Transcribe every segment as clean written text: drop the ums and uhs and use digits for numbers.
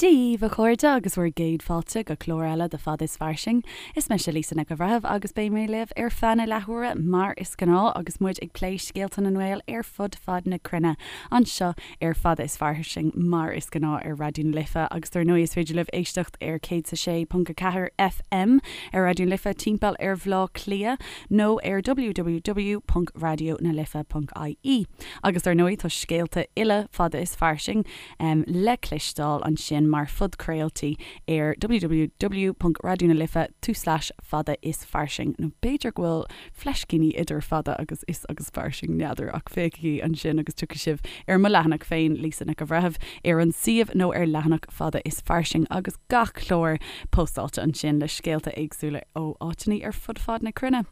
Dia dhaoibh a chairde agus bhur gcéad fáilte go clár eile de Fada is Fairsing. Is mise Lisa Nic an Bhreithimh agus beidh mé libh ar feadh na leathuaire mar is gnáth agus muid ag plé scéalta na nGael ar fud fad na cruinne anseo ar Fada is Fairsing mar is gnáth ar Raidió na Life agus dar ndóigh is féidir libh éisteacht ar 106.4 FM ar Raidió na Life timpeall ar Bhleá Cliath nó ar www.raidionalife.ie agus dar ndóigh tá scéalta uile Fada is Fairsing le cloisteáil ansin mar phodchraoltaí ar www.raidionalife tulslais fada is fairsing nó b'fhéidir go bhfuil fleiscíní idir fada agus is agus fairsing, n'fheadar, ach féachaigí ansin agus tiocfaidh sibh ar mo leathanach féin, Lisa Nic an Bhreithimh, ar an suíomh nó ar leathanach Fada is Fairsing agus gach clár postáilte ansin le scéalta éagsúla ó áiteanna ar fud fad na cruinne.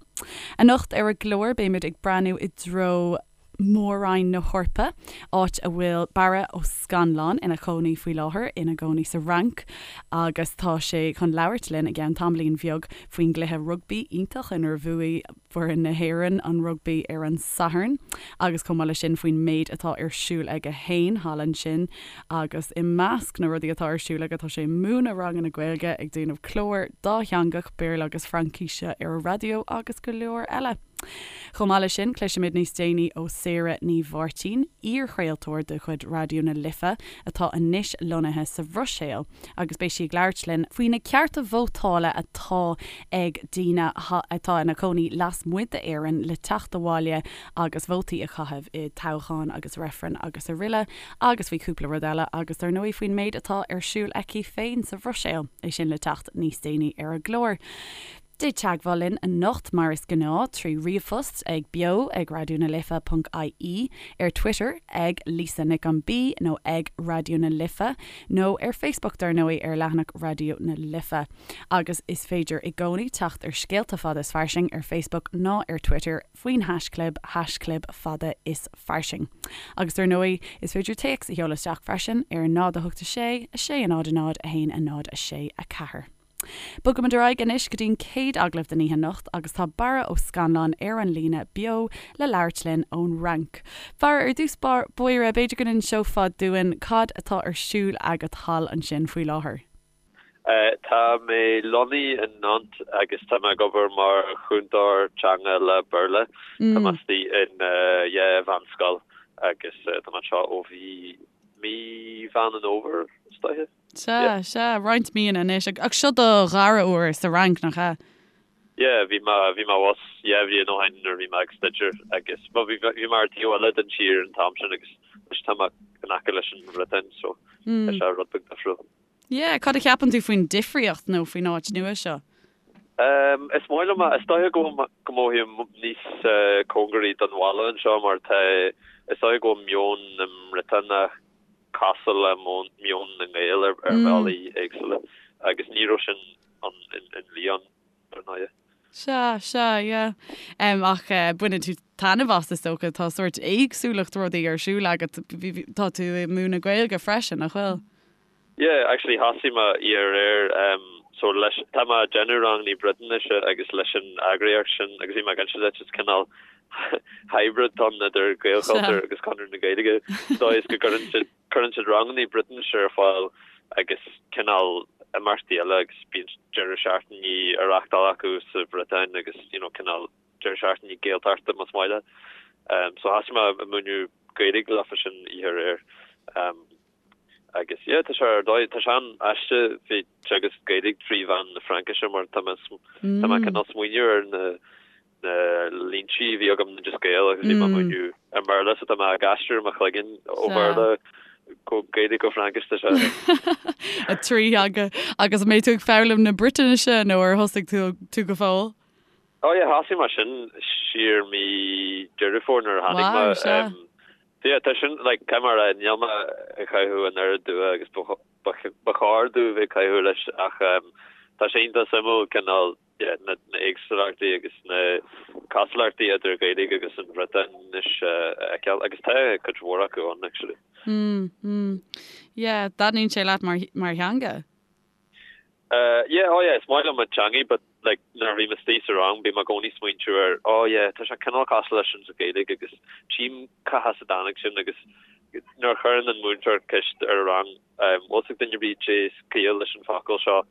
Anocht ar an gclár beimid ag breathnú i dtreo Mór-Roinn na hEorpa, áit a bhfuil Barra Ó Scannláin ina chónaí faoi láthair, ina gcónaí sa Fhrainc agus tá sé chun labhairt linn i gceann tamaillín bheag faoin gcluiche rugbaí iontach inar bhuaigh foireann na hÉireann an rugbaí ar an Satharn agus chomh maith leis sin faoin méid atá ar siúl aige féin thall ansin agus i measc na rudaí atá ar siúl aige tá sé ag múineadh ranganna Gaeilge, ag déanamh clár dátheangach, Béarla agus Fraincíse ar an raidió agus go leor eile. Chomh maith leis sin, cloisfimid níos déanaí ó Sarah Ní Mháirtín, iarchraoltóir de chuid Raidió na Life atá anois lonnaithe sa Bhruiséil, agus beidh sí ag labhairt linn faoi na cearta vótála atá ag daoine atá ina cónaí lasmuigh d'Éirinn le teacht abhaile agus vótaí a chaitheamh i dtoghcháin agus reifrinn agus aroile, agus faoi chúpla rud eile, agus dar ndóigh faoin méid atá ar siúl aici féin sa Bhruiséil. É sin le teacht níos déanaí ar an gclár. Déan teagmháil linn anocht mar is gnáth trí ríomhphost ag beo ag raidionalife.ie, ar Twitter ag Lisa Nic an B nó ag Raidió na Life nó ar Facebook dar ndóigh ar leathanach Raidió na Life. Agus is féidir i gcónaí teacht ar Scéalta Fada is Fairsing ar Facebook ná ar Twitter faoin haischlib haischlib fada is fairsing. Agus dar ndóigh is féidir téacs a sheoladh isteach freisin ar 0 8 6 6 0 0 1 0 6 4. Bogaimid ar aghaidh anois go dtí'n chéad agallamh den oíche anocht agus tá Barra Ó Scannláin ar an líne beo le labhairt linn ón Fhrainc. Barra, ar dtús báire, b'fhéidir go n-inseofá dúinn cad atá ar siúl agat thall ansin faoi láthair? Tá mé lonnaithe in Nantes agus tá mé ag obair mar chúntóir teanga le Béarla. Tá mé istigh in yeah, mheánscoil agus tá mé anseo ó bhí mí Mheán an Fhómhair, is dóiche. Sea, sea, roinnt míonna anois. Ach seo do dhara huair sa Fhrainc, nach ea? Yeah, bhí mé, bhí mé abhus dhá bhliain ó shin nuair a bhí mé ag staidéar agus, bhuel, bhí, bhí mé ar an taobh eile den tír an t-am sin agus anois tá mé in aice leis an Bhriotáin so tá sé rud beag difriúil. Yeah, cad a cheapann tú faoin difríocht nó faoin áit nua seo? Um, is maith liom é, is dóiche go go mothaím níos cóngaraí don bhaile anseo mar tá, is dóiche go bhfuil meon na mBriotánach cosúil le meon na nGael ar bhealaí éagsúla agus ní raibh sin ann in Lyon, ar ndóighe. Sea, sea, yeah. Ach baineann tú taitneamh as, is dócha. Tá sórt éagsúlacht rudaí ar siúl agat. Tá tú ag múineadh Gaeilge freisin, nach bhfuil? Yeah, actually thosaigh mé aréir so leis, tá mé ag déanamh rangannaí Briotáinise agus leis an eagraíocht sin agus bhí mé ag inse duit, is cineál hybrid atá ann idir Gaelchultúr agus Conradh na Gaeilge sa dóigh is go gcuireann siad cuireann siad rangannaí Briotáinise ar fáil agus cineál imeachtaí eile agus bíonn deireadh seachtainí á reáchtáil acu sa Bhriotáin agus you know cineál deireadh seachtainí Gaeltachta más maith leat. So thosaigh mé ag múineadh Gaeilge leofa sin oíche aréir. Agus yeah, tá sé ar dóigh, tá sé an-aisteach bheith ag teagasc Gaeilge trí mheán na Fraincise mar tá mé tá mé cineál smaoineamh ar na na línte a bhí agam in Oideas Gael agus bhí mé ag múineadh i mBéarla so tá mé ag aistriú i mo chloigeann ó Bhéarla go Gaeilge go Fraincis tá sé. A trí theanga. Agus an mbeidh tú ag foghlaim na Briotáinise nó ar thosaigh tú tú go fóill? Oh yeah, thosaigh mé sin siar mí Deireadh Fómhair nuair a tháinig mé. Wow, sea. Yeah, tá sin, like, caithfidh mé a rá, níl mé ag caitheamh an oiread dua agus ba chóir domh bheith ag caitheamh leis ach tá sé iontach suimiúil cineál, yeah, na éagsúlachtaí agus na cosúlachtaí idir Gaeilge agus an Bhriotáinis a fheiceáil agus tá cuid mhór acu ann actually. Mm, mm. Yeah, taitníonn sé leat mar, mar theanga? Yeah, oh yeah, is maith liom an teangaidh but like nuair a bhím istigh sa rang bím i gcónaí smaointiú ar oh yeah, tá sé cineál cosúil leis sin sa Ghaeilge agus tchím cá has a dtáinig sin agus. nuair a chuireann an múinteoir ceist ar an rang, bhfuil 's ag duine ar bith cad é is ciall leis an focal seo,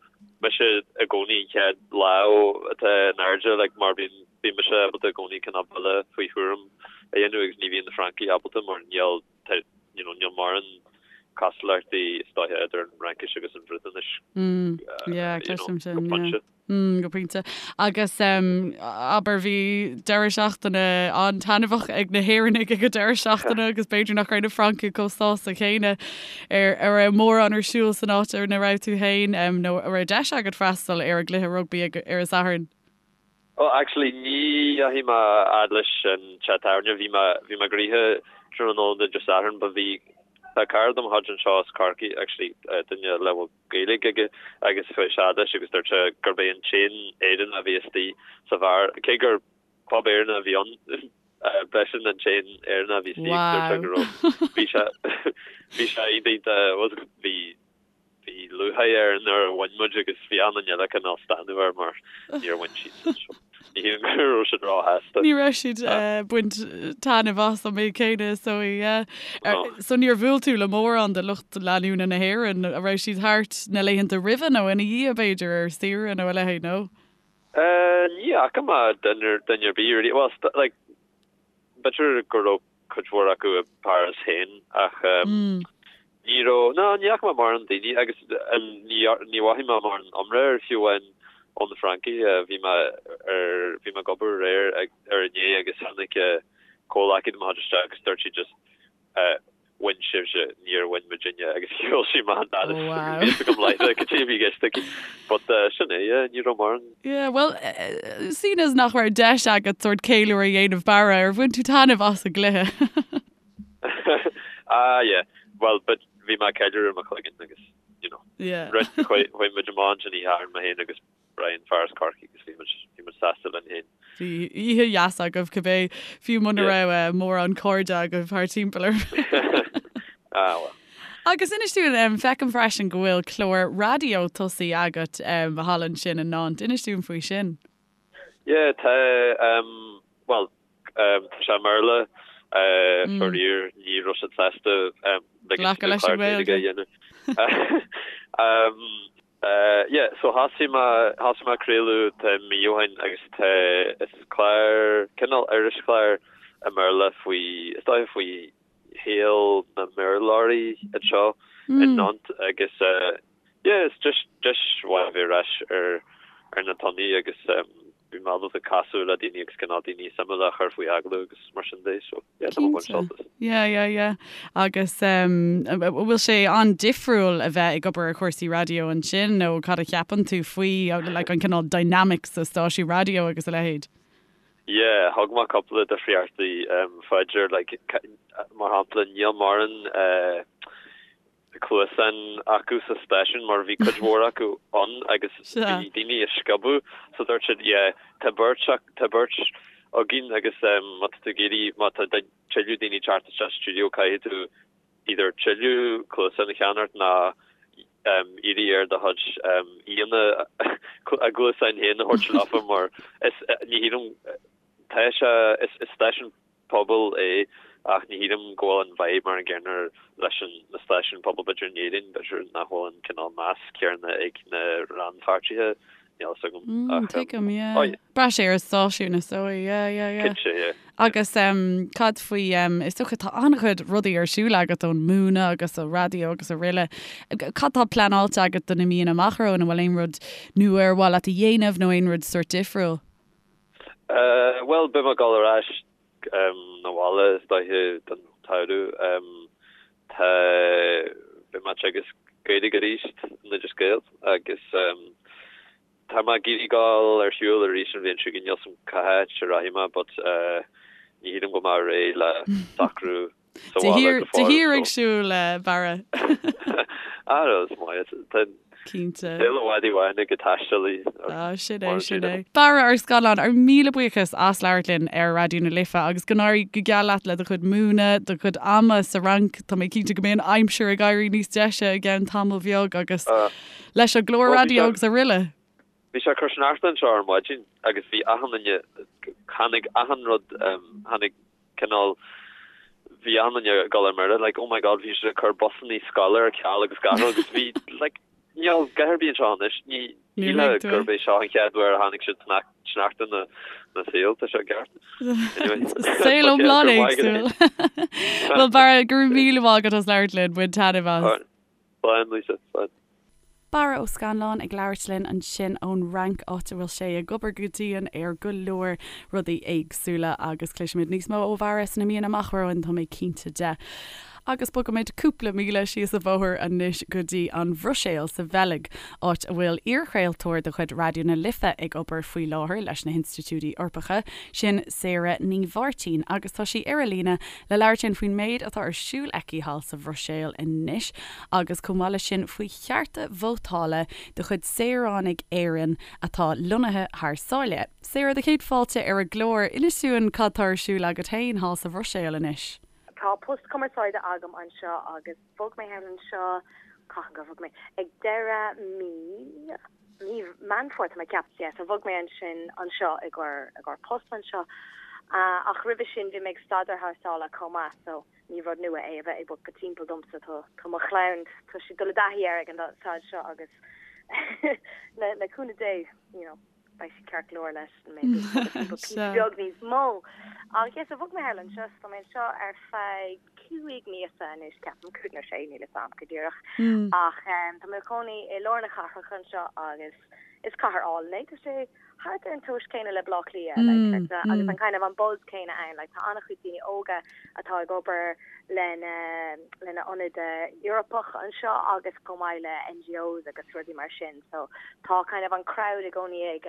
mise i gcónaí an chéad lámh atá in airde, like, mar bíonn, bíonn mise ábalta i gcónaí cineál buille faoi thuairim a dhéanamh agus ní bhíonn na Francaigh ábalta mar níl, tá, you know, níl mórán cosúlachtaí is dóiche idir an Fhraincis agus an Bhriotáinis, Yeah, you know, cloisim sin, go yeah. pointe. Mm, go pointe. Agus abair bhí deireadh seachtaine an-taitneamhach ag na hÉireannaigh ag an deireadh seachtaine agus b'fhéidir nach raibh na Francaigh chomh sásta céanna ar a raibh mórán ar siúl san áit ina raibh tú féin nó a raibh deis agat freastal ar an gcluiche rugbaí ag ar an Satharn. Oh actually ní dheachaigh mé fhad leis an teach tábhairne, bhí mé bhí mé gnoitheach tráthnóna Dé Sathairn but bhí tá cara de mo chuid anseo as Corcaigh actually duine le bhfuil Gaeilge aige agus chuaigh sé fhad leis agus dúirt sé gurb é an t-aon Éireannach a bhí istigh sa bheár, cé gur pub Éireannach a bhí ann, b'eisean an t-aon Éireannach a bhí istigh agus dúirt sé go raibh, bhí sé, bhí sé iontach, bhí, bhí lúcháir air nuair a bhain muid agus bhí achan duine eile cineál stánadh air mar níor bhain siadsan so ní shílim go raibh siad róshásta. Ní raibh siad ag baint taitneamh as an méid céanna so yeah. So níor bhuail tú le mórán de lucht leanúna na hÉireann, a raibh siad thart na laethanta roimhe nó ina dhiaidh b'fhéidir ar saoire nó a leithéid nó? Ní fhaca mé duine ar bith really, well like b'fhéidir go raibh cuid mhór acu i bPáras féin ach ní raibh, ná ní fhaca mé mórán daoine agus ní ní mhothaigh mé mórán iomrá air fiú amháin ó na Francaigh. Bhí mé ar, bhí mé ag obair aréir ar inné agus tháinig comhghleacaí de mo chuid isteach agus dúirt sí just bhain sibhse, níor bhain muidinne agus shiúil sí amach an doras agus bhí fhios agam láithreach cad é a bhí i gceist aici. But sin é, yeah, ní raibh mórán. Yeah, bhuel, seeing as nach raibh deis agat sórt ceiliúradh a dhéanamh Barra, ar bhain tú taitneamh as an gcluiche? Ah, yeah, bhuel, but bhí mé ag ceiliúradh i mo chloigeann agus, you know, Yeah. chuaigh muid amach ansin oíche Shathairn, mé féin agus Brian, fear as Corcaigh agus bhí muid, bhí muid sásta linn féin. Bhí oíche dheas agaibh cibé, fiú muna raibh mórán cairde agaibh thar timpeall oraibh. Ah, well. Agus inis dúinn, feicim freisin go bhfuil clár raidió tosaithe agat thall ansin in Nantes. Inis dúinn faoi sin. Yeah, tá, bhuel, tá sé i mBéarla, faraor, ní raibh siad sásta glacadh leis an Ghaeilge a dhéanamh. Yeah, so thosaigh mé, thosaigh mé ag craoladh tá mí ó shin agus tá, is clár, cineál irischlár i mBéarla faoi, is dóiche faoi shaol na mBéarlóirí anseo i Nantes agus yeah, is deis, deis mhaith a bheith ar ais ar, ar na tonnaí agus bhí mé ábalta casadh le daoine agus cineál daoine suimiúla a chur faoi agallamh agus mar sin de so yeah, tá mé ag baint sult as. Yeah, yeah, yeah. Agus an bhfuil sé an-difriúil a bheith ag obair ar chúrsaí raidió ansin nó cad a cheapann tú faoi like an cineál dynamics sa stáisiún raidió agus a leithéid? Yeah, thug mé cúpla difríochtaí fá dear like mar shampla níl mórán cluasáin acu sa stáisiún mar bhí cuid mhór acu ann agus bhí daoine ag sciobadh so dúirt siad yeah tá beirt tá beirt againn agus má tá tú ag iarraidh má tá tuilleadh daoine teacht isteach sa stiúideo caithfidh tú either tuilleadh cluasán a cheannacht nó iarraidh ar do chuid aíonna a gcluasáin féin a thabhairt leofa mar is ní shílim tá sé is stáisiún pobail é ach ní shílim go bhfuil an vibe mar an gcéanna leis an na stáisiúin pobail b'fhéidir in Éirinn b'fhéidir nach bhfuil an cineál meas céanna ag na rannpháirtithe níl fhios agam ach Tuigim, yeah. oh yeah. Braitheann sé ar an stáisiún is dóigh, yeah, yeah, yeah. Cinnte, yeah. Agus cad faoi, is dócha tá an-chuid rudaí ar siúl agat ón múineadh agus an raidió agus araile. Cad tá pleanáilte agat do na míonna amach romhainn? An bhfuil aon rud nua ar mhaith leat a dhéanamh nó aon rud sórt difriúil? Bhuel, beidh mé ag dul ar ais 'na bhaile is dóiche don tsamhradh. Tá, beidh mé ag teagasc Gaeilge arís in Oideas Gael agus tá mé ag iarraidh dul ar shiúl arís an bhliain seo chugainn. Níl 's a'm cá háit a rachaidh mé but ní shílim go mbeidh mé réidh le socrú sa bhaile go fóill. De shíor ag siúl, Barra. Ah, is maith. Tá Cinnte. saol i bhfad i bhfad ag taistealaí. Ah, sin é, sin é. Barra ar Scannán, ár míle buíochas as labhairt linn ar Raidió na Life agus go n-éirí go geal leat le do chuid múineadh, do chuid ama sa Fhrainc. Tá mé cinnte go mbeidh an aimsir ag éirí níos deise i gceann tamall bheag agus leis an gclár raidió agus araile. Bhí sé ag cur sneachta anseo ar maidin agus bhí achan duine, tháinig achan rud, tháinig cineál. bhí achan duine ag dul ar mire like oh my god bhí siad ag cur busannaí scoile ar ceal agus gach rud agus bhí like níl a dhath ar bith anseo anois ní shílfeá gurb é seo an chéad uair a tháinig siad sneachta ina saol tá sé ceart. Anyway. Saol iomlán éagsúil. Bhuel Barra go raibh míle maith agat as labhairt linn, bain taitneamh as. Slán Lisa, slán. Barra Ó Scannláin ag labhairt linn ansin ón Fhrainc, áit a bhfuil sé ag obair go dian ar go leor rudaí éagsúla agus cloisfimid níos mó ó Bharra sna míonna amach romhainn, tá mé cinnte de. Agus bogaimid cúpla míle síos an bóthar anois go dtí an Bhruiséil sa Bheilg, áit a bhfuil iarchraoltóir de chuid Raidió na Life ag obair faoi láthair leis na hinstitiúidí Eorpacha, sin Sarah Ní Mháirtín, agus tá sí ar an líne le labhairt linn faoin méid atá ar siúl aici thall sa Bhruiséil anois agus chomh maith leis sin faoi chearta vótála de chuid saoránaigh Éireann atá lonnaithe thar sáile. Sarah, do chéad fáilte ar an gclár. Inis dúinn cad tá ar siúl agat féin thall sa Bhruiséil anois. Tá post cumarsáide agam anseo agus bhog mé thall anseo, cathain gur bhog mé? Ag deireadh mí, mí Meán Fómhair tá mé ag ceapadh, yeah, so bhog mé ansin anseo i gcomhair, i gcomhair post anseo. Ach roimhe sin bhí mé ag staidéar thar sáile chomh maith so ní rud nua é a bheith ag bogadh timpeall domsa, tá, tá mo chlann, tá siad ag dul i dtaithí air ag an staid seo agus le, le cúnamh Dé, you know. beidh siad ceart go leor leis mé píosa beag níos mó. Ach yes, so bhog mé thall anseo, so tá mé anseo ar feadh 5 míosa anois, ceapaim, 5 nó 6, níl 'fhios a'm go díreach. Ach tá mé i mo chónaí i lár na cathrach anseo agus is cathair álainn é, tá sé thart ar an tomhas céanna le Baile Átha Cliath, like, agus an kind of an buzz céanna ann, like, tá an-chuid daoine óga atá ag obair lena lena ionad Eorpach anseo agus chomh maith le NGOs agus rudaí mar sin so tá kind of an crowd i gcónaí ag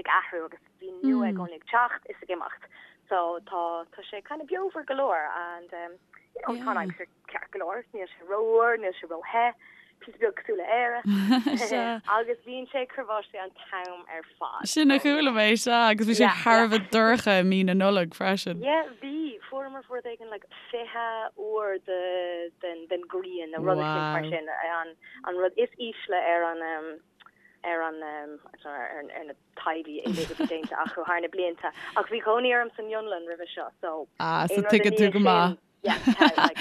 ag athrú agus daoine nua i gcónaí ag teacht is ag imeacht so tá tá sé kind of beomhar go leor and um, you know, tá an aimsir ceart go leor níl sé rófhuar níl sé róthe píosa beag cosúil le Éire agus bíonn sé ag cur báistí an t-am ar fad. Sin a chuala mé, sea, agus bhí sé thar a bheith dorcha i mí na Nollag freisin. Yeah, bhí. Fuaireamar rud éigin like 20 uair de den den ghrian nó rud éicint mar sin, an an rud is ísle ar an ar an ar ar na taighde uilig a bhí déanta acu thar na blianta. Ach bhí cónaí orm san Fhionlainn roimhe seo, so Ah, so aon rud i tuigeann tú go maith. Yeah, tá, like,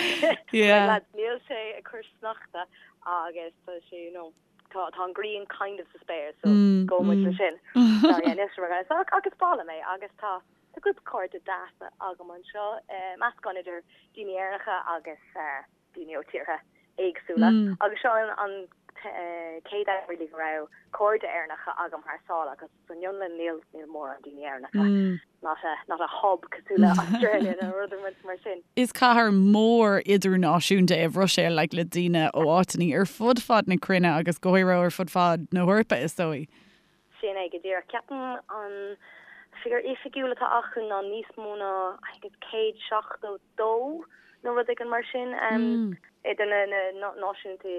Yeah. lads, níl sé ag cur sneachta agus tá sé, you know, tá, tá an ghrian kind of sa spéir, so Mm, gabhfaidh muid le sin. So, yeah, níl sé mar so, ach is breá liom é agus tá, tá grúpa cairde deasa agam anseo, eh, meascán idir daoine Éireannacha agus, eh, daoine ó tíortha éagsúla. Mm. Agus seo an, an eh, chéad am really go raibh cairde Éireannacha agam thar sáile agus San Fhionlainn níl níl mórán daoine Éireannacha. Not a not a hub cosúil le Australia nó rud mar sin. Is cathair mhór idirnáisiúnta é an Bhruiséil like le daoine ó áiteanna ar fud fad na cruinne agus go háirithe ar fud fad na hEorpa is dóigh. Sin é go díreach. Ceapaim an figiúr oifigiúil atá acu ná níos mó ná I think it's 172 nó rud éigin mar sin idir na na náisiúnta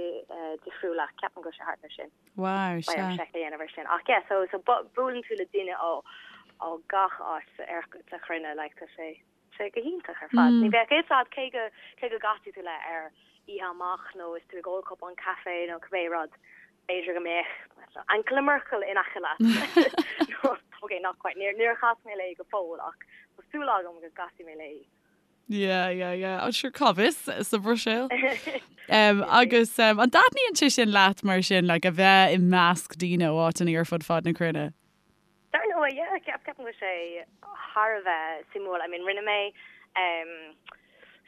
difriúla. Ceapaim go bhfuil sé thart ar sin. Wow, sea. Beidh orm seic a dhéanamh ar sin. Ach yeah, so, so buaileann tú le duine ó, ó gach áit ar, sa chruinne, like, tá sé, sé go hiontach ar fad. Ní bheadh fhios a'd cé go, cé go gcasfaidh tú le ar oíche amach nó is tú ag ól cupán caife nó cibé rud, b'fhéidir go mbeadh Angela Merkel in aice leat. Nó, ok, not quite, níor, níor chas mé léi go fóill ach tá súil agam go gcasfaidh mé léi. Yeah, yeah, yeah. Oh, sure, cá bhfios sa Bhruiséil. Um, agus um, an dtaitníonn sé sin leat mar sin, like, a bheith i measc daoine ó áiteanna ar fud fad na cruinne? Dar ndóigh, yeah, ceap, ceapaim go bhfuil sé thar a bheith suimiúil. I mean, rinne mé um,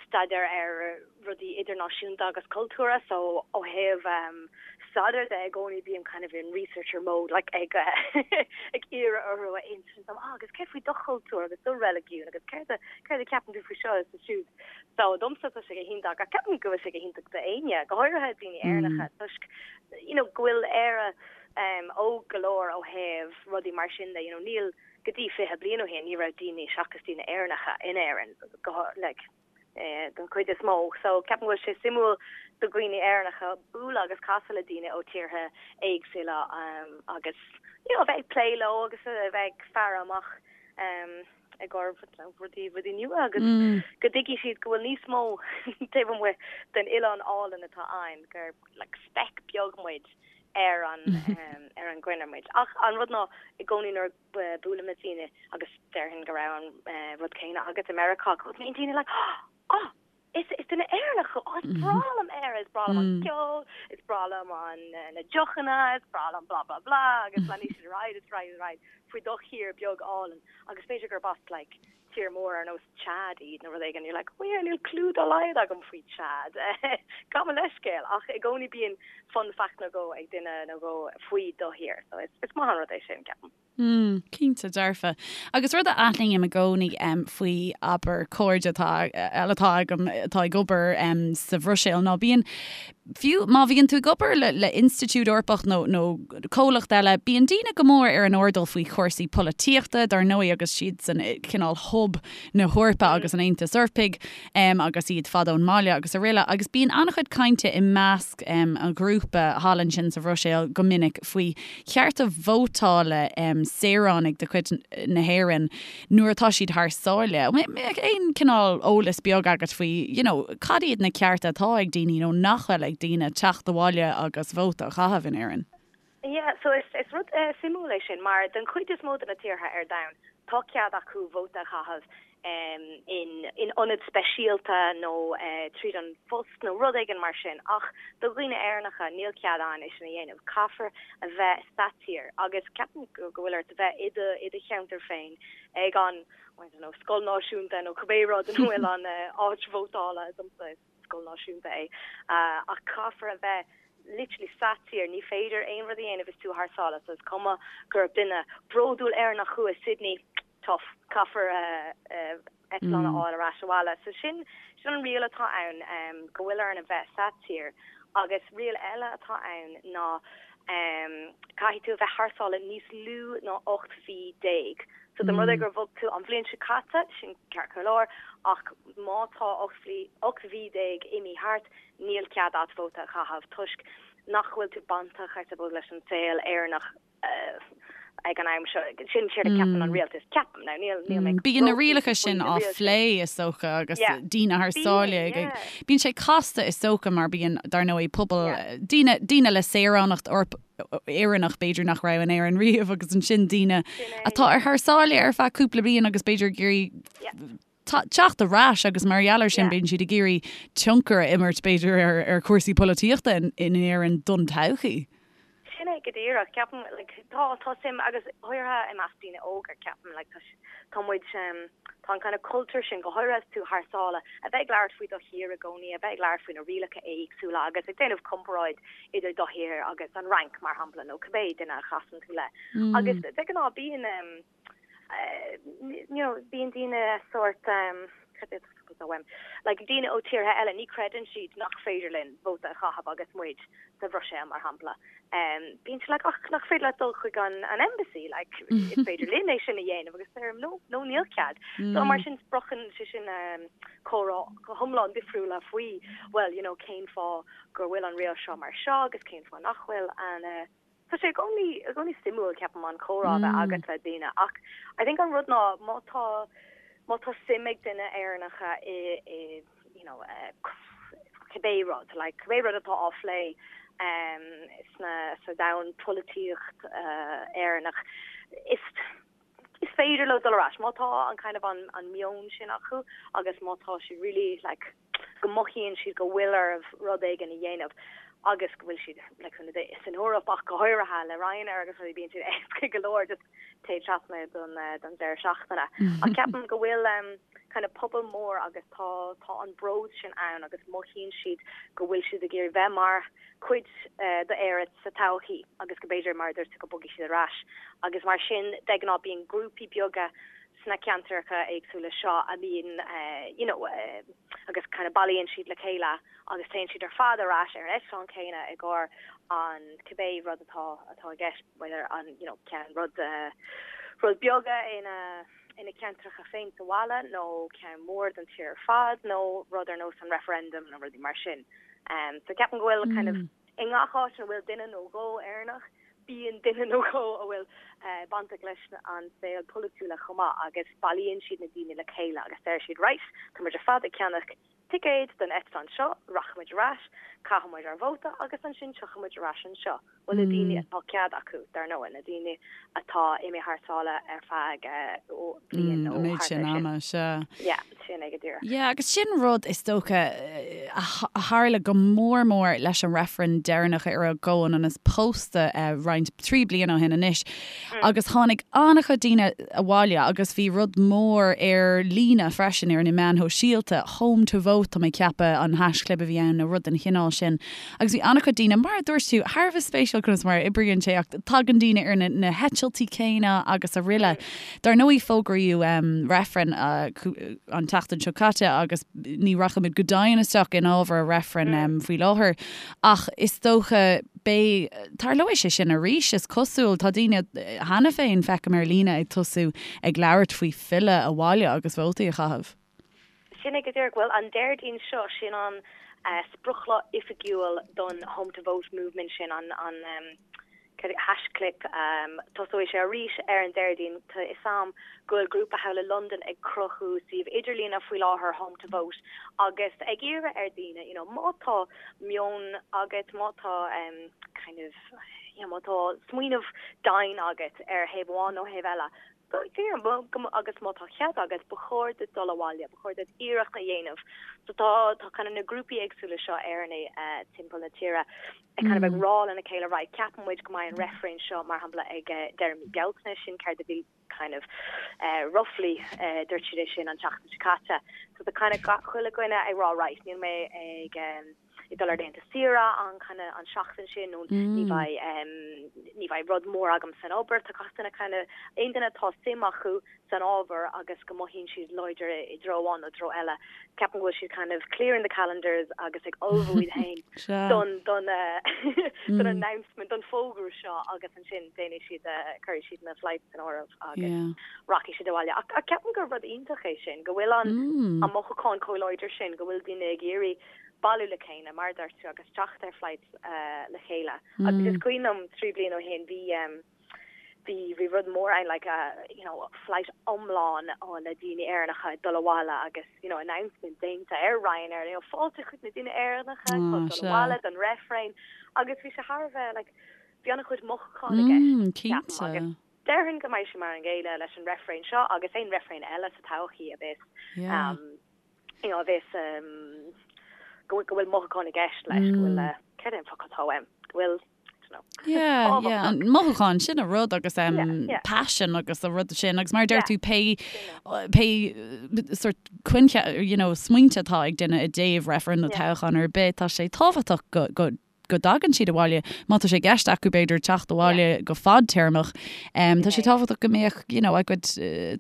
staidéar ar rudaí idirnáisiúnta agus cultúrtha, so ó thaobh um, staidéar de i gcónaí bím kind of in researcher mode, like ag ag iarraidh orthu a insint dom, ah, agus céard faoi do chultúr agus do reiligiún agus céard a céard a ceapann tú faoi seo is siúd. So domsa tá sé go hiontach, ach ceapaim go bhfuil sé go hiontach d'éinne, go háirithe daoine Éireannacha, toisc you know go bhfuil Éire um, óg go leor ó thaobh rudaí mar sin de, you know, níl go dtí 20 bliain ó shin ní raibh daoine seachas daoine Éireannacha in Éirinn go like den chuid is mó. So ceapaim go bhfuil sé suimiúil do dhaoine Éireannacha bualadh agus casadh le daoine ó tíortha éagsúla agus you know a bheith ag plé leo agus a bheith ag faire amach i gcomhair rudaí rudaí nua agus go dtuigfidh siad go bhfuil níos mó taobh amuigh den oileán álainn atá againn gur like speck beag muid ar an ar an gcruinne muid. Ach an rud ná i gcónaí nuair buailim le daoine agus déarfainn go raibh an rud céanna agat i Meiriceá, go mbíonn daoine like, oh! Is is duine Éireannach thú. Oh, is breá liom Éire, is breá liom an ceol, is breá liom an na deochanna, is breá liom blah blah blah agus leanfaidh siad ar aghaidh is ar aghaidh is ar aghaidh faoi do thír beag álainn agus b'fhéidir gurb as like tír mór ar nós Chad iad nó rud éigin, you're like, oh yeah, níl clue dá laghad agam faoi Chad. Gabh mo leithscéal ach i gcónaí bíonn fun fact nó dhó ag duine nó dhó faoi do thír so is is maith an rud é sin, ceapaim. Mm, cinnte dearfa. Agus rud a aithním i gcónaí faoi, abair, cairde atá, eile atá agam atá ag obair sa Bhruiséil ná bíonn, fiú má bhíonn tú ag obair le, le institiúid Eorpach nó, nó comhlacht eile, bíonn daoine go mór ar an airdeall faoi chúrsaí polaitíochta, dar ndóigh, agus siad san cineál hub na hEorpa agus an Aontais Eorpaigh agus iad fada ón mbaile agus araile. Agus bíonn an-chuid cainte i measc an ghrúpa thall ansin sa Bhruiséil go minic faoi chearta vótála saoránaigh de chuid na hÉireann nuair atá siad thar sáile. An mbeadh aon cineál eolas beag agat faoi, you know, cad iad na cearta atá ag daoine nó nach bhfuil ag daoine teacht abhaile agus vóta a chaitheamh in Éirinn? Yeah, so is, is rud suimiúil é sin mar den chuid is mó de na tíortha ar domhan tá cead acu vóta a chaitheamh in ionad speisialta nó tríd an phost nó rud éigin mar sin ach do dhaoine Éireannacha níl cead ann é sin a dhéanamh. Caithfear a bheith sa tír agus ceapaim go bhfuil ort a bheith i do i do cheantar féin ag an I don't know scoil náisiúnta nó cibé rud ina bhfuil an áit vótála domsa is scoil náisiúnta é ach caithfear a bheith literally sa tír, ní féidir aon rud a dhéanamh is tú thar sáile so is cuma gur duine bródúil Éireannach thú i Sydney, tough, caithfear eitleán a fháil ar ais abhaile. So sin sin an riail atá ann, go bhfuil orainn a bheith sa tír. Agus riail eile atá ann ná caithfidh tú a bheith thar sáile níos lú ná 18 mhí. So dá mba rud é gur bhog tú an bhliain seo caite, sin ceart go leor, ach má tá 18 mhí imithe thart, níl cead a't vóta a chaitheamh toisc nach bhfuil tú bainteach, I suppose, leis an saol Éireannach. ag an am seo. Sin séard a ceapann an rialtas. Ceapaim. Now níl níl mé Bíonn na rialacha sin á phlé is dócha agus daoine thar sáile ag Bíonn sé casta is dócha mar bíonn dar ndóigh pobal daoine daoine le saoránacht Éireannach b'fhéidir nach raibh in Éirinn riamh agus ansin daoine atá ar thar sáile ar feadh cúpla bliain agus b'fhéidir ag iarraidh teacht ar ais agus mar gheall air sin bíonn siad ag iarraidh tionchar a imirt b'fhéidir ar ar chúrsaí polaitíochta in Éirinn don todhchaí. Sin é go díreach. Ceapaim like tá tá suim agus go háirithe i measc daoine óga ceapaim like tá tá muid tá an kind of cultúr sin go háirithe is tú thar sáile a bheith ag labhairt faoi do thír i gcónaí, a bheith ag labhairt faoi na rialacha éagsúla agus ag déanamh comparáid idir do thír agus an Fhrainc mar shampla nó cibé duine a chasann tú le. Agus de ghnáth bíonn you know, bíonn daoine sórt, cad é atá uaim, like daoine ó tíortha eile, ní chreideann siad nach féidir linn vóta a chaitheamh agus muid sa Bhruiséil, mar shampla. Bíonn siad like, ach nach féidir leat dul chuig an, an embassy, like, is féidir linn é sin a dhéanamh agus deirim, no, no, níl cead. So mar sin spreagann sé sin comhrá go hiomlán difriúla faoi, well, you know, cén fáth go bhfuil an riail seo mar seo agus cén fáth nach bhfuil and, Tá sé i gcónaí, i gcónaí suimiúil, ceapaim, an comhrá a bheith agat le daoine ach I think an rud ná má tá, má tá suim ag duine Éireannacha i, i, you know, cibé rud, like cibé rud atá á phlé sna, sa domhan polaitíocht Éireannach, is, is féidir leo dul ar ais má tá an kind of an, an meon sin acu agus má tá siad really like, go mothaíonn siad go bhfuil orthu rud éigin a dhéanamh agus go bhfuil siad like san san Eoraip ach go háirithe le Ryanair agus rudaí bíonn siad éasca go leor just téigh trasna don don deireadh seachtaine. Ach ceapaim go bhfuil um, kind of pobal mór agus tá tá an bród sin ann agus mothaíonn siad go bhfuil siad ag iarraidh bheith mar chuid uh, d'Éire sa todhchaí agus go b'fhéidir mar a dúirt tú go mbogfaidh siad ar ais agus mar sin de ghnáth bíonn grúpaí beaga sna ceantracha éagsúla seo a mbíonn you know agus kind of bailíonn siad le chéile agus téann siad ar fad ar ais ar an eitleán céanna i gcomhair an cibé rud atá atá i gceist whether an you know ceann rud rud beaga ina ina ceantracha féin sa bhaile nó ceann mór don tír ar fad nó rud ar nós an referendum nó rudaí mar sin. Um, so ceapaim go bhfuil kind of i ngach áit ina bhfuil duine nó dhó Éireannach Bíonn duine nó dhó a bhfuil bainteach leis an saol polaitiúla chomh maith agus bailíonn siad na daoine le chéile agus deir siad right, tá muid ar fad ag ceannach ticéid don eitleán seo, rachaidh muid ar ais, caithfidh muid ár vóta agus ansin tiocfaidh muid ar ais anseo. Bhuel, na daoine atá cead acu, dar ndóigh, na daoine atá imithe thar sáile ar feadh bliain nó An méid thart sin ar sin. ama, sea. Yeah, sin é go díreach. Yeah, agus sin rud is dócha a tharla go mór mór leis an reifreann deireanach ar an gcomhionannas pósta roinnt, 3 bliana ó shin anois. Agus tháinig an-chuid daoine abhaile agus bhí rud mór ar líne freisin ar na meáin shóisialta, home to vote tá mé ag ceapadh an haischlib a bhí ann nó rud den chineál sin. Agus bhí an-chuid daoine, mar a dúirt tú, thar a bheith spéisiúil conas mar a oibríonn sé ach tagann daoine ar na heitiltí céanna agus araile. Dar ndóigh fógraíodh reifreann an tseachtain seo caite agus ní rachaimid go domhain isteach in ábhar an reifrinn faoi láthair ach is dócha beidh, tarlóidh sé sin arís is cosúil. Tá daoine cheana féin, feicim ar líne, ag tosú ag labhairt faoi filleadh abhaile agus vótaí a chaitheamh. Sin é go díreach. Bhuel, an Déardaoin seo, sin an sprioclá oifigiúil don Home to Vote movement sin, an haischlib. Tosóidh sé arís ar an Déardaoin. Tá a fhios a'm go bhfuil grúpa thall i Londain ag cruthú suíomh idirlíne faoi láthair, Home to Vote, agus ag iarraidh ar daoine, you know, má tá meon agat, má tá kind of, you know, má tá smaoineamh daingean agat ar thaobh amháin nó thaobh eile, Agus má tá cead agat, ba chóir duit dul abhaile, ba chóir duit iarracht a dhéanamh. So tá tá kind of na grúpaí éagsúla seo Éireannaigh timpeall na tíre ag kind of ag rá lena chéile, right, ceapann muid go mbeidh an reifreann seo mar shampla ag deireadh mí Bealtaine, sin céard a bhí kind of roughly dúirt siad é sin an tseachtain seo caite. So tá kind of gach chuile dhuine ag rá, right, níl mé ag ag dul ar laethanta saoire an kind of an seachtain sin nó ní bheidh ní bheidh rud mór agam san obair. Tá gach duine kind of aon duine atá suim acu san ábhar agus go mothaíonn siad láidir i dtreo amháin nó treo eile, ceapaim go bhfuil siad kind of clearing the calendars agus ag ullmhú iad féin don don don announcement, don fógra seo agus ansin déanfaidh siad cuirfidh siad na flights san áireamh agus rachaidh siad abhaile. Ach ceapaim gur rud iontach é sin, go bhfuil an an mothúchán chomh láidir sin, go bhfuil daoine ag iarraidh bailiú le chéile, mar a dúirt tú, agus teacht ar flights le chéile. Agus is cuimhin liom 3 bliana ó shin, bhí, bhí, bhí rud mór ann, like, you know, flight iomlán le daoine Éireannacha ag dul abhaile agus, you know, announcement déanta ar Ryanair, you know, fáilte chuig na daoine Éireannacha atá ag dul abhaile don reifreann. Agus bhí sé thar a bheith, like, bhí an-chuid mothúchán i gceist, ceapaim, agus déarfainn go mbeidh sé mar an gcéanna leis an reifreann seo agus aon reifreann eile sa todhchaí a bheas, you know, a bheas go go bhfuil mothúchán i gceist leis, go bhfuil, céard é an focal atá uaim, go bhfuil, I don't know. Yeah, yeah, an mothúchán sin an rud agus um, passion agus an rud sin agus mar a deir tú pé pé sort coincheap, you know, smaointe atá ag duine i dtaobh reifreann nó toghchán ar bith, tá sé tábhachtach go go go dtagann siad abhaile, má tá sé i gceist acu b'fhéidir teacht abhaile go fadtéarmach, tá sé tábhachtach go mbeadh you know a gcuid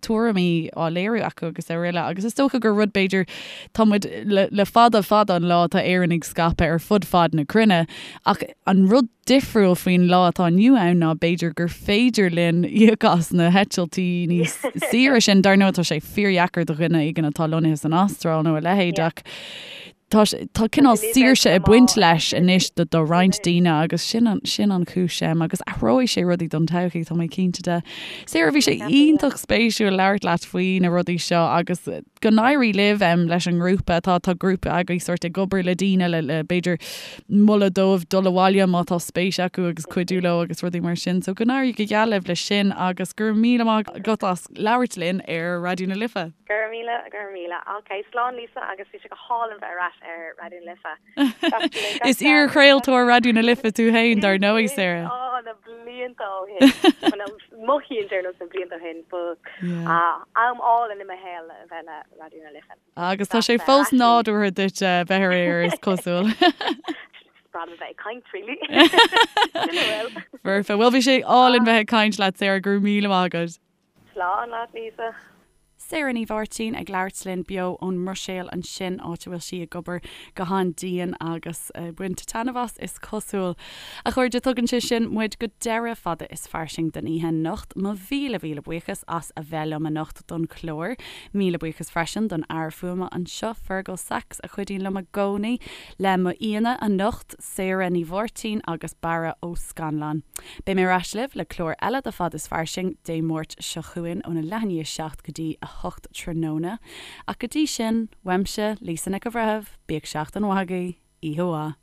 tuairimí á léiriú acu agus araile. Agus is dócha gur rud b'fhéidir, tá muid le le fada fada an lá tá Éireannaigh scaipthe ar fud fad na cruinne ach an rud difriúil faoin lá atá inniu ann ná b'fhéidir gur féidir linn íoc as na heitiltí níos saoire sin. Dar ndóigh tá sé fíordheacair do dhuine éigin atá lonnaithe san Astráil nó a leithéid ach Tá tá cineál saoirse ag baint leis anois do do roinnt daoine agus sin an sin an chúis agus athróidh sé rudaí don todhchaí, tá mé cinnte de. Sarah, bhí sé iontach spéisiúil labhairt leat faoi na rudaí seo agus go n-éirí libh leis an ngrúpa. Tá tá grúpa agaibh sórt ag obair le daoine le le b'fhéidir moladh dóibh dul abhaile má tá spéis acu agus cuidiú leo agus rudaí mar sin. So go n-éirí go geal libh leis sin agus go raibh míle maith agat as labhairt linn ar Raidió na Life. Go raibh míle, go raibh míle. Ok, slán Lisa agus bhí sé go hálainn bheith ar ais ar Raidió na Life. Is iar-chraoltóir Raidió na Life tú féin, dar ndóigh, Sarah. Á, na blianta ó shin. Mothaíonn sé ar nós na blianta ó shin, ba am álainn i mo shaol a bheith le Raidió na Life. Agus tá sé fós nádúrtha duit bheith ar aer, is cosúil. Is breá liom a bheith ag caint, really. Sin a bhfuil. Foirfe. Bhuel, bhí sé álainn bheith ag caint leat, Sarah. Go raibh míle maith agat. Slán leat, Lisa. Sarah Ní Mháirtín ag labhairt linn beo ón mBruiséil ansin, áit a bhfuil sí ag obair go han-dian agus ag baint taitneamh as, is cosúil. A chairde, tugann sé sin muid go deireadh Fada is Fairsing don oíche anocht. Mo mhíle mhíle buíochas as a bheith liom anocht don chlár. Míle buíochas freisin don fhear fuaime anseo, Fergal Sachs, a chuidíonn liom i gcónaí. Le m'aíonna anocht, Sarah Ní Mháirtín agus Barra Ó Scannláin. Beidh mé ar ais libh le clár eile de Fad is Fairsing Dé Máirt seo chugainn óna leath i ndiaidh 7 go dtí 8 tráthnóna. Ach go dtí sin, uaimse, Lisa Nic an Bhreithimh, bíodh seachtain mhaith agaibh, oíche mhaith.